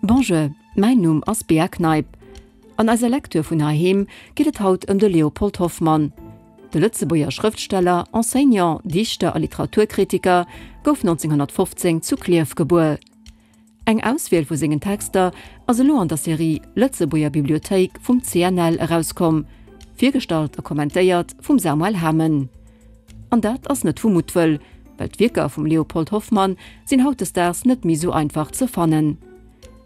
Bonjour, mäin Numm ass Bea Kneip. An eiser Lecture vun heiheem geet et haut ëm de Léopold Hoffmann. De Lëtzebuerger Schrëftsteller, Enseignant, Dichter a Literaturkritiker gouf 1915 zu Klierf gebuer. Eng Auswiel vu sengen Texter ass elo an der Serie Lëtzebuerger Bibliothéik vum CNL erauskomm, virgestallt a kommentéiert vum Samuel Hamen. An dat ass net vu Muttwëll, well d'Wierker vum Léopold Hoffmann sinn hautdesdaags net méi sou einfach ze fannen.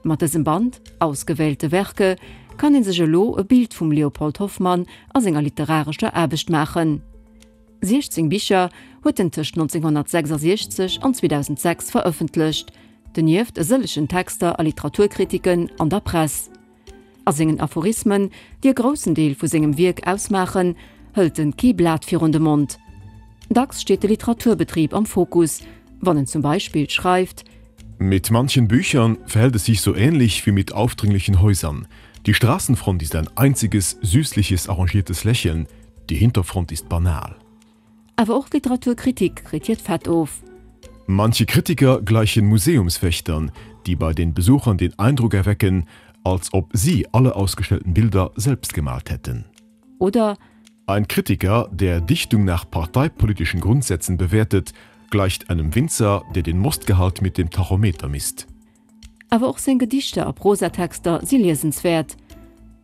Mat dësem Band Ausgewählte Werke kann ee sech elo e Bild vum Léopold Hoffmann a senger literarescher Aarbecht maachen. 16 Bicher huet en tëscht 1966 an 2006 verëffentlecht, donieft e sëllegen Texter a Literaturkritiken an der Press. A sengen Aphorismen, déi e groussen Deel vu sengem Wierk ausmaachen, hëlt en kee Blat virun de Mond. Dacks steet de Literaturbetrib am Fokus, wann en zum Beispill schreift. Mit manchen Büchern verhält es sich so ähnlich wie mit aufdringlichen Häusern. Die Straßenfront ist ein einziges, süßliches, arrangiertes Lächeln, Die Hinterfront ist banal. Awer och d'Literaturkritik kritt hiert Fett of. Manche Kritiker gleichen Museumswächtern, die bei den Besuchern den Eindruck erwecken, als ob sie alle ausgestellten Bilder selbst gemalt hätten. Oder Ein Kritiker, der Dichtung nach parteipolitischen Grundsätzen bewertet, gleicht einem Winzer, der den Mostgehalt mit dem Tachometer misst. Awer och seng Gedichter a Prosatexter si liesenswäert.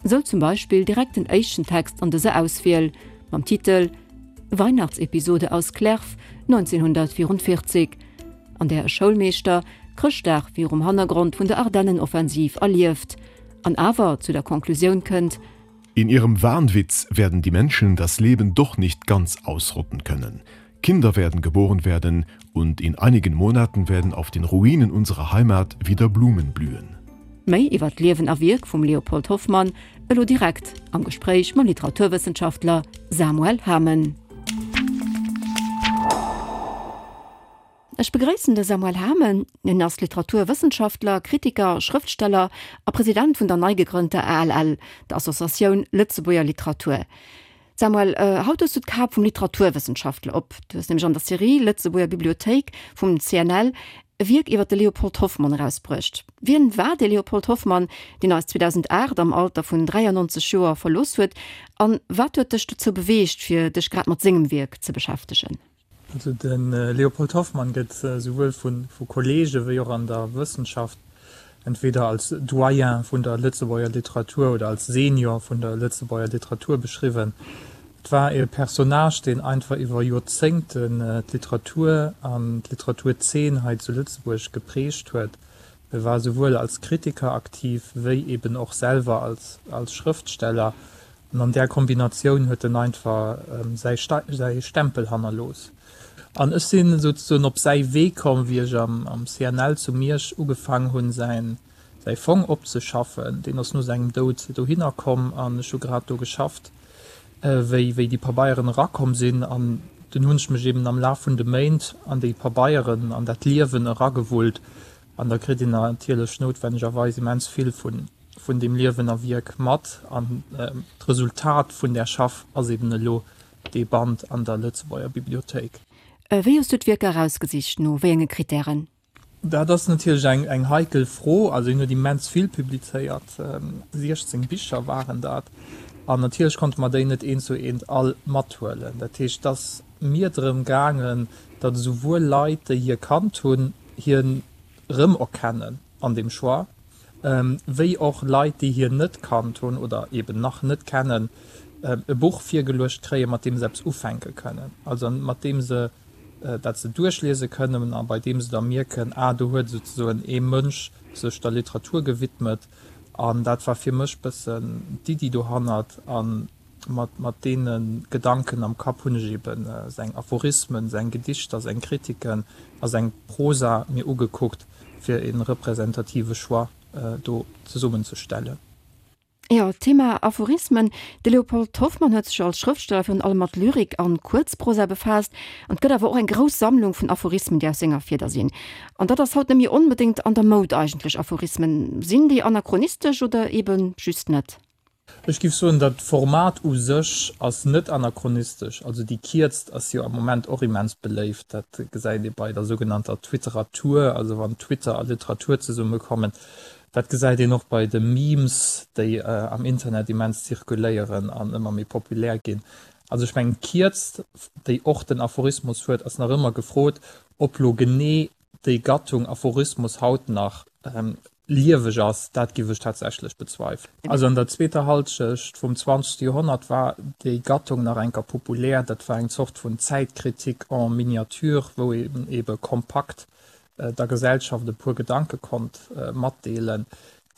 Sou zum Beispill direkt den éischten Text an dëser Auswiel mam Titel Weihnachtsepisode aus Clerf 1944, an där e Schoulmeeschter Chrëschtdag virum Hannergrond vun der Ardennenoffensiv erlieft an awer zu der Conclusioun kënnt, In ihrem Wahnwitz werden die Menschen das Leben doch nicht ganz ausrotten können. Kinder werden geboren werden und in einigen Monaten werden auf den Ruinen unserer Heimat wieder Blumen blühen. Méi iwwer d'Liewen a Wierk vum Léopold Hoffmann elo direkt am Gespréich mam Literaturwëssenschaftler Samuel Hamen. Ech begréissen de Samuel Hamen. Hien ass Literaturwëssenschaftler, Kritiker, Schrëftsteller a President vun der nei gegrënnter ALL, der Associatioun Lëtzebuerger Literatur. Samuel, haut hues du d'Kap vum Literaturwëssenschaftler op. Du hues nämlech an der Serie Lëtzebuerger Bibliothéik vum CNL e Wierk iwwer de Léopold Hoffmann erausbruecht. Wien war de Léopold Hoffmann, deen eis 2008 am Alter vun 93 Joer verlooss huet? An wat huet dech dozou beweegt, fir dech grad mat sengem Wierk ze beschäftegen? Also de Léopold Hoffmann gëtt souwuel vu Kolleege wéi och an der Wëssenschaft entweder als Doyen vun der Lëtzebuerger Literatur oder als Senior vun der Lëtzebuerger Literatur beschriwwen. Et war e Personnage, deen einfach iwwer Joerzéngten d'Literatur an d'Literaturzeen hei zu Lëtzebuerg geprägt huet. E war souwuel als Kritiker aktiv wéi eben och selwer als Schrëftsteller. An an där Kombinatioun huet en einfach säi Stempel hannerlooss. An ech sinn souzesoen op säi Wee komm, wéi ech am CNL zu Miersch ugefaang hunn, säi Fong opzeschaffen. Deen ass no sengem Doud dohinner komm an ech hu grad do geschafft, wéi wéi déi Pabeieren erakomm sinn. An dunn hunn ech mech eben am Laf vun de Méint an déi Pabeieren, an dat Liewen eragewullt. An da kritt een natierlech noutwennegerweis immens vill vun vun deem Liewen a Wierk mat. An d'Resultat vun där Schaff ass eben elo dee Band an der Lëtzebuerger Bibliothéik. Wéi hues du d'Wierker erausgesicht? No wéi enge Krittären? Dat ass natierlech eng eng heikel Fro. Also hien huet immens vill publizéiert, 16 Bicher waren dat. An natierlech konnte mer déi net eent zu eent all mathuelen. Dat heescht, et ass mir drëm gaangen, datt esouwuel Leit, déi hie kannt hunn, hien erëmerkennen an deem Choix, wéi och Leit, déi hien net kannt hunn oder eben nach net kennen, e Buch virgeluecht kréien, mat deem se eppes ufänke kënnen, also mat deem se dat se duerchliese kënnen a bei deem se da mierken, ah, do huet souzesoen ee Mënsch sech der Literatur gewidmet. An dat war fir mech bëssen d'Iddi dohannert. A mat deene Gedanken am Kapp hunn ech eben seng Aphorismen, seng Gedichter, seng Kritiken a seng Prosa mir ugekuckt, fir e representative Choix do zesummenzestellen. Jo, Thema Aphorismen. De Léopold Hoffmann huet sech als Schrëftsteller virun allem mat Lyrik an Kuerzprosa befaasst. An et gëtt awer och eng grouss Sammlung vun Aphorismen, déi aus senger Fieder sinn. An dat ass haut net méi onbedéngt an der Moud eigentlech. Aphorismen, sinn déi anachronistesch oder eben just net? Ech giff soen, dat Format u sech ass net anachronistesch. Also déi Kierzt ass jo am Moment och immens beléift. Dat gesäit ee bei der sougenannter Twitteratur, also wann Twitter a Literatur zesummekommen. Dat gesäit een och bei de Memes, déi am Internet immens zirkuléieren an ëmmer méi populär ginn. Also ech mengen d'Kierzt, déi och den Aphorismus huet, ass nach ëmmer gefrot. Ob lo genee déi Gattung Aphorismus haut nach lieweg ass, dat giff ech tatsächlech bezweifelen. Also an der zweeter Halschecht vum zwanzegste Joerhonnert war déi Gattung nach enker populär. Dat war eng Zort vun Zäitkritik en miniature, wou een ebe kompakt der Gesellschaft e puer Gedanke konnt matdeelen.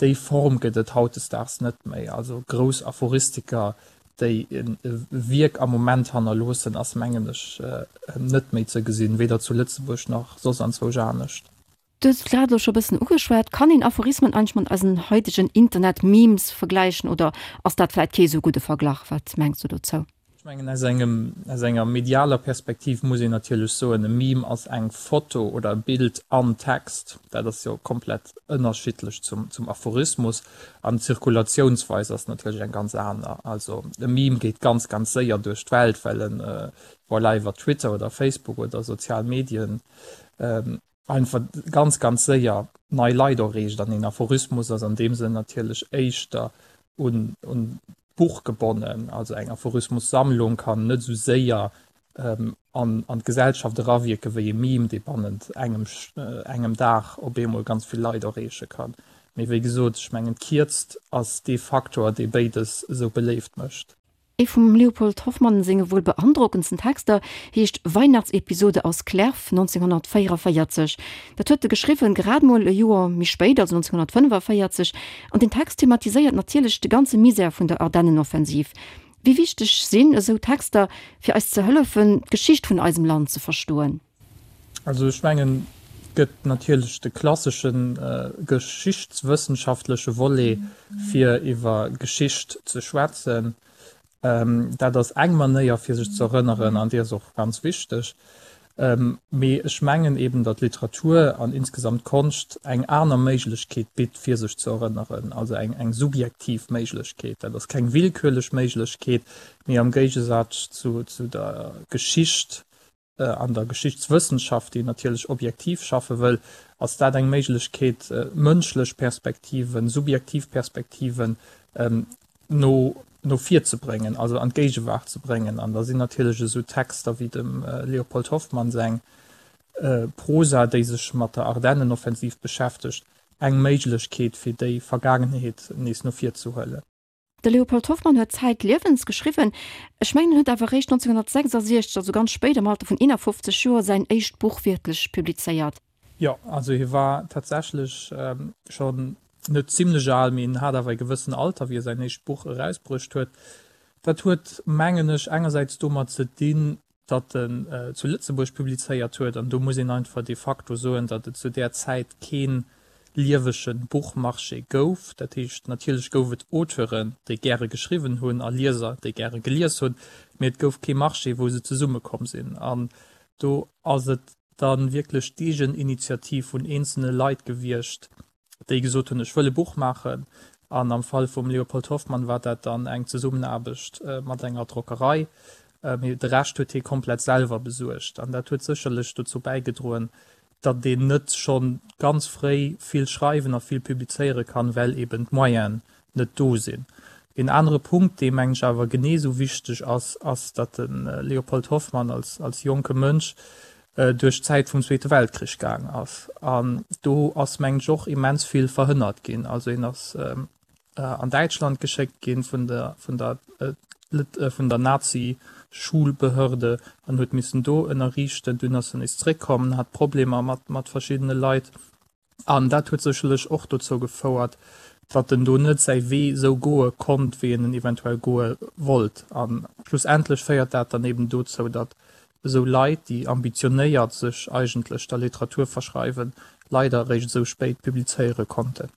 Déi Form gëtt et hautdesdaags net méi. Also grouss Aphoristiker, déi e Wierk am Moment hannerloossen, ass mengen ech net méi ze gesinn, weder zu Lëtzebuerg nach soss anzwousch anescht. Du hues et grad elo scho e bëssen ugeschwat, Kann een Aphorismen eigentlech mat eisen haitegen Internet-Memes vergläichen oder ass dat vläit kee sou gudde Verglach? Wat mengs du dozou? Ech mengen, aus engem, aus enger medialer Perspektiv muss een natierlech soen, e Meme ass eng Foto oder e Bild an Text. Dat ass jo komplett ënnerschiddlech zum, zum Aphorismus. An d'Zirkulatiounsweis ass natierlech eng ganz aner. Also e Meme geet ganz, ganz séier duerch d'Welt, well en, voilà, iwwer Twitter oder Facebook oder sozial Medien einfach ganz, ganz séier nei Leit erreecht. An een Aphorismus ass an deem Sënn natierlech éischter un, un d'Buch gebonnen. Also eng Aphorismussammlung kann net esou séier an, an d'Gesellschaft erawierke wéi e Meme, dee bannent engem, engem Dag op eemol ganz vill Leit erreeche kann. Mee wéi gesot, ech mengen d'Kierzt ass dee Faktor, dee béides esou beléift mécht. Ee vum Leopold Hoffmann senge wuel beandrockendsten Texter heescht Weihnachtsepisode aus Clerf, 1944. Dat huet e geschriwwen, grad mol e Joer méi spéit, also 1945. An den Text thematiséiert natierlech de ganze Misär vun der Ardennenoffensiv. Wéi wichteg sinn esou Texter, fir eis ze hëllefen, d'Geschicht vun eisem Land ze verstoen? Also ech mengen, et gëtt natierlech de klassesche geschichtswëssenschaftleche Volet, fir iwwer Geschicht ze schwätzen. Dat ass eng Manéier, fir sech ze erënneren, an déi ass och ganz wichteg. Mee ech mengen eben, datt Literatur an insgesamt Konscht eng aner Méiglechkeet bitt, fir sech ze erënneren, also eng subjektiv Méiglechkeet. Dat ass keng willkürlech Méiglechkeet, mee am Géigesaz zu der Geschicht, An der Geschichtswëssenschaft, déi natierlech objektiv schaffe wëll, ass dat eng Méiglechkeet, mënschlech Perspektiven, subjektiv Perspektiven no no vir ze bréngen, also an d'Géigewaart ze bréngen. An da sinn natierlech esou Texter wéi dem Leopold Hoffmann seng Prosa, déi sech mat der Ardennenoffensiv beschäftegt, eng Méiglechkeet, fir déi Vergaangenheet nees no vir ze huelen. De Leopold Hoffmann huet zäitliewens geschriwwen. Ech mengen, en huet awer eréischt 1966, also ganz spéit, am Alter vun 51 Joer, säin éischt Buch wierklech publizéiert. Jo, also hie war tatsächlech schonn net zimlech al, mee en hat awer e gewëssen Alter, wéi e säin éischt Buch erausbruecht huet. Dat huet, mengen ech, engersäits domat ze dinn, datt en zu Lëtzebuerg publizéiert huet, an do muss een einfach de facto soen, datt et zu där Zäit kee liewege Buchmarché gouf. Dat heescht, natierlech gouf et Auteuren, déi gäre geschriwwen hunn, a Lieser, déi gäre gelies hunn, mee et gouf kee Marché, wou se zesummekomm sinn. An do ass et da wierklech d'Eegeninitiativ vun eenzelne Leit gewiescht, déi gesot hunn, ech wëll e Buch maachen. An am Fall vum Leopold Hoffmann war dat dann eng Zesummenaarbecht mat enger Drockerei. Mee de Rescht huet hie komplett selwer besuergt. An dat huet sécherlech dozou bäigedroen, datt een net scho ganz fréi vill schreiwen a vill publizéiere kann, well eben d'Moyenen net do sinn. Een anere Punkt, dee mengen ech awer genee esou wichteg ass, ass, datt de Leopold Hoffmann als als jonke Mënsch duerch d'Zäit vum Zweete Weltkrich gaang ass. An do ass mengen ech och immens vill verhënnert ginn. Also hien ass an Däitschland geschéckt ginn vun der vun der vun der Nazi-Schulbehörde an huet missen do ënnerriichten. Dunn ass en nees zréckkomm, hat Problemer mat mat verschiddene Leit. An dat huet sécherlech och dozou gefouert, datt en do net säi Wee esou goe konnt, wéi en en eventuell goe wollt. A schlussendlech féiert dat dann eben dozou, datt esou Leit, déi ambitionéiert sech eigentlech der Literatur verschreiwen, leider eréischt esou spéit publizéiere konnten.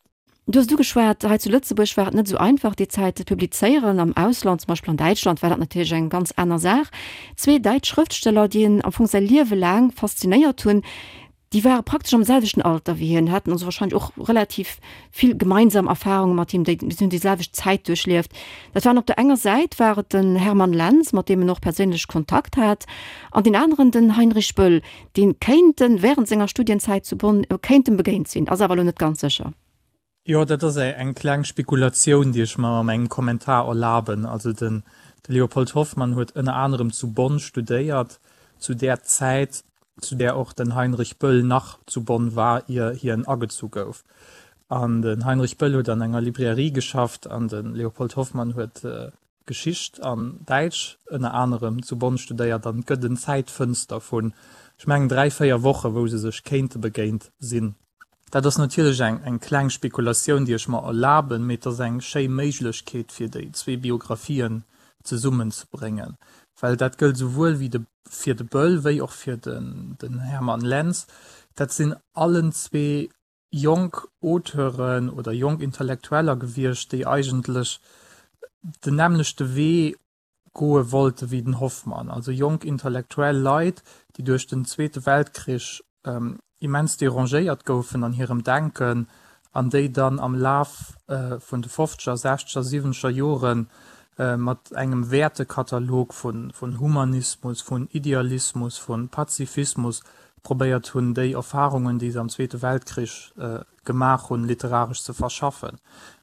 Du hues et ugeschwat, hei zu Lëtzebuerg war et net esou einfach déi Zäit ze publizéieren. Am Ausland, zum Beispill an Däitschland, war dat natierlech eng ganz aner Saach. Zwee däitsch Schrëftsteller, déi en am Fong säi Liewe laang faszinéiert hunn, Déi ware praktesch am selwechten Alter wéi hien, haten also wahrscheinlech och relativ vill gemeinsam Erfahrunge mat him, déi si hunn déi selwecht Zäit duerchlieft. Dat waren op der enger Säit war et den Hermann Lenz, mat deem en och perséinlech Kontakt hat, an deen aneren den Heinrich Böll, dee kéint en während senger Studienzäit zu Bonn kéint em begéint sinn, ass awer elo net ganz sécher. Jo, dat ass eng kleng Spekulatioun, déi ech mer a mengem Kommentar erlaben. Also de Leopold Hoffmann huet ënner anerem zu Bonn studéiert, zu där Zäit, zu där och den Heinrich Böll nach zu Bonn war, ier hien agezu gouf. An den Heinrich Böll huet an enger Librairie geschafft an de Leopold Hoffmann huet Geschicht an Däitsch ënner anerem zu Bonn studéiert. An et gëtt en Zäitfënster vun, ech mengen, 3, 4 Woche wou se sech kéinte begéint sinn. Dat ass natierlech eng eng kleng Spekulatioun, déi ech mer erlaben, mee et ass eng schéi Méiglechkeet fir déi zwee Biographien zesummenzebréngen, well dat gëllt esouwuel wéi de fir de Böll wéi och fir den den Hermann Lenz. Dat sinn allen zwee jonk Auteuren oder jonk Intellektueller gewiescht, déi eigentlech den nämmlechte Wee goe wollte wéi den Hoffmann, also jonk intellektuell Leit, déi duerch den Zweete Weltkrich immens derangéiert goufen an hirem Denken an déi dann am Laf vun de fofzeger, sechzeger, siwwenzeger Jore mat engem Wäertekatalog vun Humanismus, vun Idealismus, vu Pazifismus probéiert hunn, déi Erfarungen, déi se am Zweete Weltkrich gemaach hunn, literaresch ze verschaffen.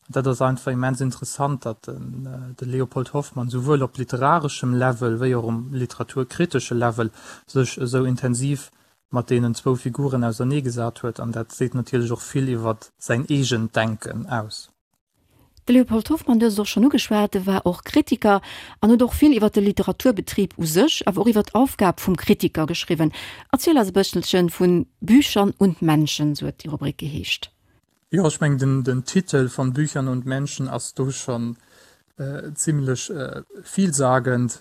An dat ass einfach immens interessant, datt de Leopold Hoffmann souwuel op literareschem Level wéi och um literaturkritesche Level sech esou intensiv mat deenen zwou Figuren auserneegesat huet. An dat seet natierlech och vill iwwer säin eegent Denken aus. De Leopold Hoffmann, du hues et och schonn ugeschwat, e war och Kritiker an huet och vill iwwer de Literaturbetrib u sech, awer och iwwer d'Aufgab vum Kritiker geschriwwen. Erziel eis e bësselche vu Büchern und Menschen, sou huet déi Rubrik geheescht. Jo, ech mengen den Titel Von Büchern und Menschen ass do schonn zimlech villsagend.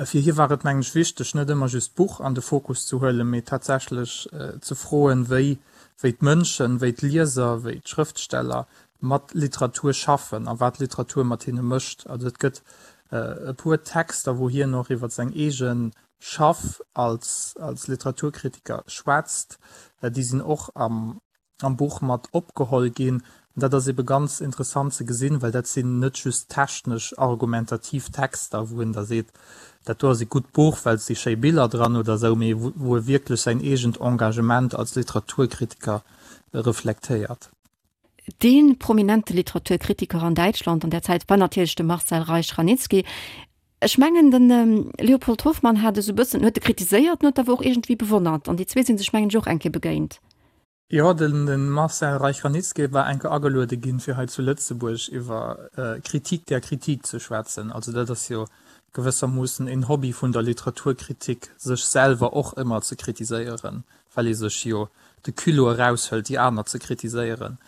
Fir hie war et, mengen ech, wichteg, net ëmmer just d'Buch an de Fokus ze huelen, mee tatsächlech ze froen, wéi d'Mënschen, wéi d'Lieser, wéi d'Schrëftsteller mat Literatur schaffen a wat Literatur mat hinne mécht. Also et gëtt e puer Texter, wou hien och iwwer seng eege Schaff als als Literaturkritiker schwätzt. Déi sinn och am am Buch mat opgeholl ginn. An dat ass ebe ganz interessant ze gesinn, well dat sinn net just technesch argumentativ Texter, wou en da seet, dat do ass e gutt Buch, well et si schéi Biller dran oder esou, mee wou e wierklech säin eegent Engagement als Literaturkritiker reflektéiert. Dee prominente Literaturkritiker an Däitschland an där Zäit war natierlech de Marcel Reich-Ranicki. Ech mengen, de Leopold Hoffmann hat esou e bëssen, huet e kritiséiert, en huet awer och iergendwéi bewonnert. An déi zwee si sech, mengen ech, och eng Kéier begéint. Jo, de Marcel Reich-Ranicki war eng Kéier ageluede ginn, fir hei zu Lëtzebuerg iwwer Kritik der Kritik ze schwätzen. Also dat ass jo gewëssermoossen en Hobby vun der Literaturkritik, sech selwer och ëmmer ze kritiséieren. well ee sech jo de Culot eraushëlt, déi aner ze kritiséieren.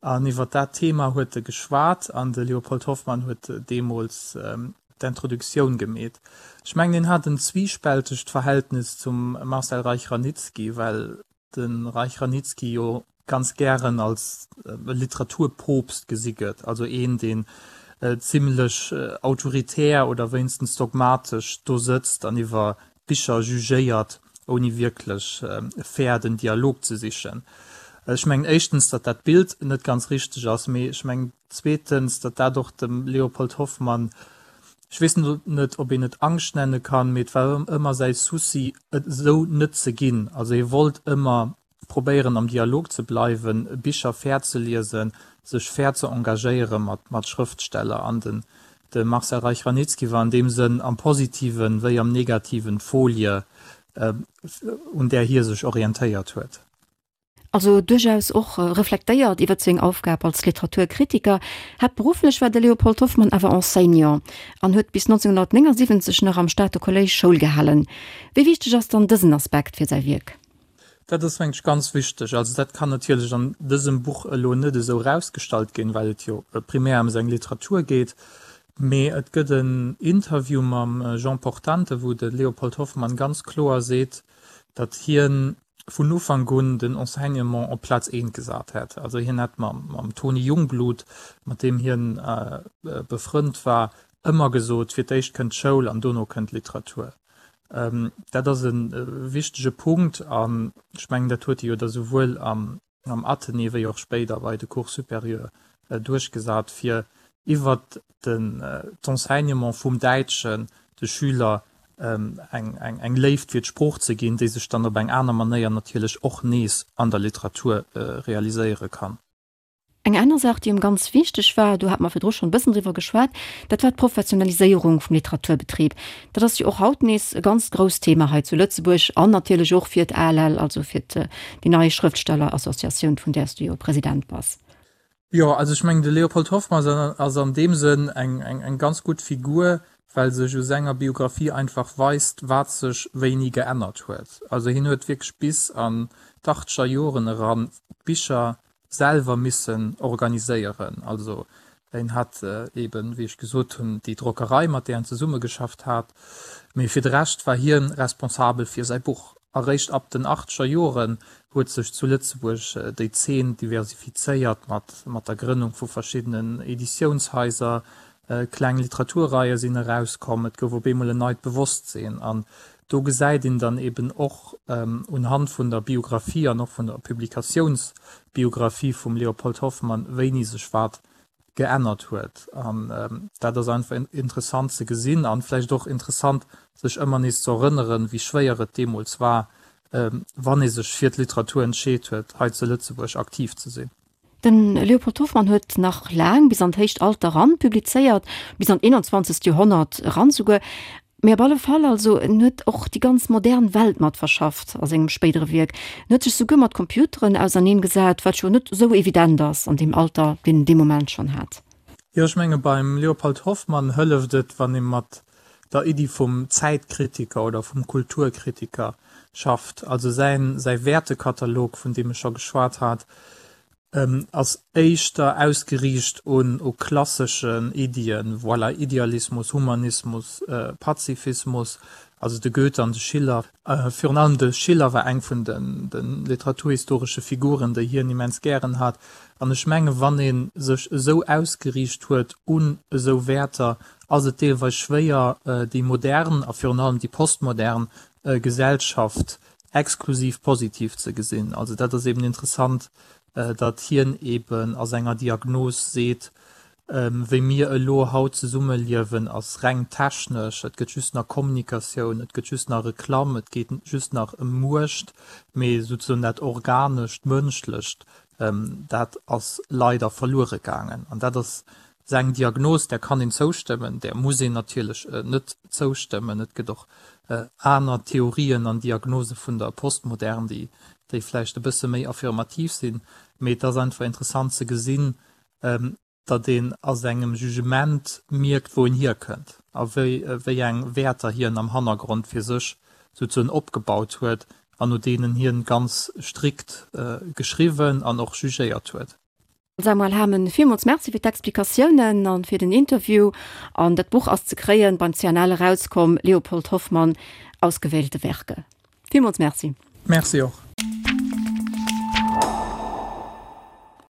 An iwwer dat Thema huet e geschwat an de Leopold Hoffmann huet deemools d'Introduktioun gemeet. Ech mengen, hien hat en zwiispältegt Verhältnis zum Marcel Reich-Ranicki, well de Reich-Ranicki jo ganz gären als Literaturpoopst gesi gëtt, also een, deen zimlech autoritär oder wéinstens dogmatesch do sëtzt an iwwer Bicher jugéiert, ouni wierklech fair den Dialog ze sichen. Ech mengen éischtens, datt dat Bild net ganz richteg ass, mee ech mengen zweetens, datt dat och dem Leopold Hoffmann, ech weess net, ob een et Angscht nenne kann, mee et war ëmmer säi Souci, et esou net ze ginn. Also hie wollt ëmmer probéieren am Dialog ze bleiwen, Bicher fair ze liesen, sech fair ze engagéiere mat Schrëftsteller. An den de Marcel Reich-Ranicki war an deem Sënn am Positiven wéi am Negativen d'Folie, un där hie sech orientéiert huet. Also duerchaus och reflektéiert iwwer seng Aufgab als Literaturkritiker. Haaptberufflech war de Leopold Hoffmann awer Enseignant an huet bis 1979 nach am Stater Kolléisch Schoul gehalen. Wéi wichteg ass dann dësen Aspekt fir säi Wierk? Dat ass, mengen ech, ganz wichteg. Also dat kann natierlech an dësem Buch elo net esou erausgestallt ginn, well et jo primär ëm seng Literatur geet. Mee et gëtt en Interview mam Jean Portante, wou de Leopold Hoffmann ganz kloer seet, datt hien vun Ufank un den Enseignement op Plaz eent gesat hätt. Also hien hätt mam Tony Jungblut, mat deem hien befrënnt war, ëmmer gesot, fir d'éischt kënnt d'Schoul an dono kënnt d'Literatur. Dat ass e wichtege Punkt an ech mengen, dat huet e jo da souwuel am Athenée wéi och spéider bei de Cours supérieurs duerchgesat, fir iwwert d'Enseignement vum Däitschen de Schüler eng Léift fir d'Sprooch ze ginn, déi sech dann op eng aner Manéier natierlech och nees an der Literatur realiséiere kann. Eng aner Saach, déi em ganz wichteg war, do hate mer virdru schonn e bëssen driwwer geschwat, dat war d'Professionaliséierung vum Literaturbetrib. Dat ass jo och haut nees e ganz grousst Thema hei zu Lëtzebuerg an natierlech och fir d'ALL, also fir déi nei Schrëftstellerassociatioun, vun där s du jo President bass. Jo, also ech mengen, de Leopold Hoffmann ass an deem Sënn eng ganz gutt Figur, well sech u senger Biographie einfach weist, wat sech wéini geännert huet. Also hien huet wierklech bis an d'Achtzeger Joren eran d'Bicher selwer missen organiséieren. Also en hat eben, wéi ech gesot hunn, déi Drockerei, mat där en zesummegeschafft hat, mee fir de Rescht war hien responsabel fir säi Buch. Eréischt ab den achtzeger Joren huet sech zu Lëtzebuerg déi Zeen diversifizéiert mat mat der Grënnung vu verschiddenen Editiounshaiser, kleng Literaturreie sinn erauskomm, et gouf op eemol en neit Bewosstsinn an Do gesäit een dann eben och unhand vun der Biographie an och vun der Publikatiounsbiographie vum Leopold Hoffmann, wéini sech wat geännert huet. An dat ass einfach interessant ze gesinn an vläicht och interessant, sech ëmmer nees ze erënneren, wéi schwéier et deemools war, wann ee sech fir d'Literatur entscheet huet, hei zu Lëtzebuerg aktiv ze sinn. De Leopold Hoffmann huet nach laang, bis an d'héicht Alter eran, publizéiert, bis an d'eenanzwanzegt Joerhonnert eran souguer. Mee op alle Fall, also en huet och déi ganz modern Welt mat verschafft a sengem spéidere Wierk. En huet sech souguer mat Computeren auserneen gesat, wat jo net esou evident ass an deem Alter, deen en dee Moment schonn hat. Jo, ech menge beim Leopold Hoffmann hëlleft et, wann ee mat der Iddi vum Zäitkritiker oder vum Kulturkritiker schafft. Also säin, säi Wäertekatalog, vun deem ech scho geschwat hat, ass éischter ausgeriicht un u klasseschen Iddien, voilà, Idealismus, Humanismus, Pazifismus, also de Goethe an de Schiller. Virun allem de Schiller war eng vun de literaturhistoresche Figuren, déi hien immens gären hat. An ech menge wann ee sech esou ausgeriicht huet un esou Wäerter, ass et deelweis schwéier, déi modern a virun allem déi postmodern Gesellschaft exklusiv positiv ze gesinn. Also dat ass eben interessant, datt hien eben a senger Diagnos seet, wéi mir elo haut zesummeliewen, ass reng technesch, et gëtt just nach Kommunikatioun, et gëtt just nach Reklamm, et geet just nach ëm Muecht, mee souzesoen dat Organescht, Mënschlecht, dat ass leider verluere gaangen. An dat ass Seng Diagnos, där kann een zoustëmmen, där muss een natierlech net zoustëmmen. Et gëtt och aner Theorien an Diagnose vun der Postmodern, déi déi vläicht e bësse méi affirmativ sinn. Mee et ass einfach interessant ze gesinn, datt een a sengem Jugement mierkt, wou en hierkënnt a wéi wéi eng Wäerter hien am Hannergrond fir sech souzesoen opgebaut huet an no deenen hien ganz strikt geschriwwen an och jugéiert huet. Samuel Hamen, villmools Merci fir d'Explikatiounen an fir den Interview. An dat Buch ass ze kréien, beim CNL erauskomm, Leopold Hoffmann, Ausgewählte Werke. Villmools Merci. Merci och.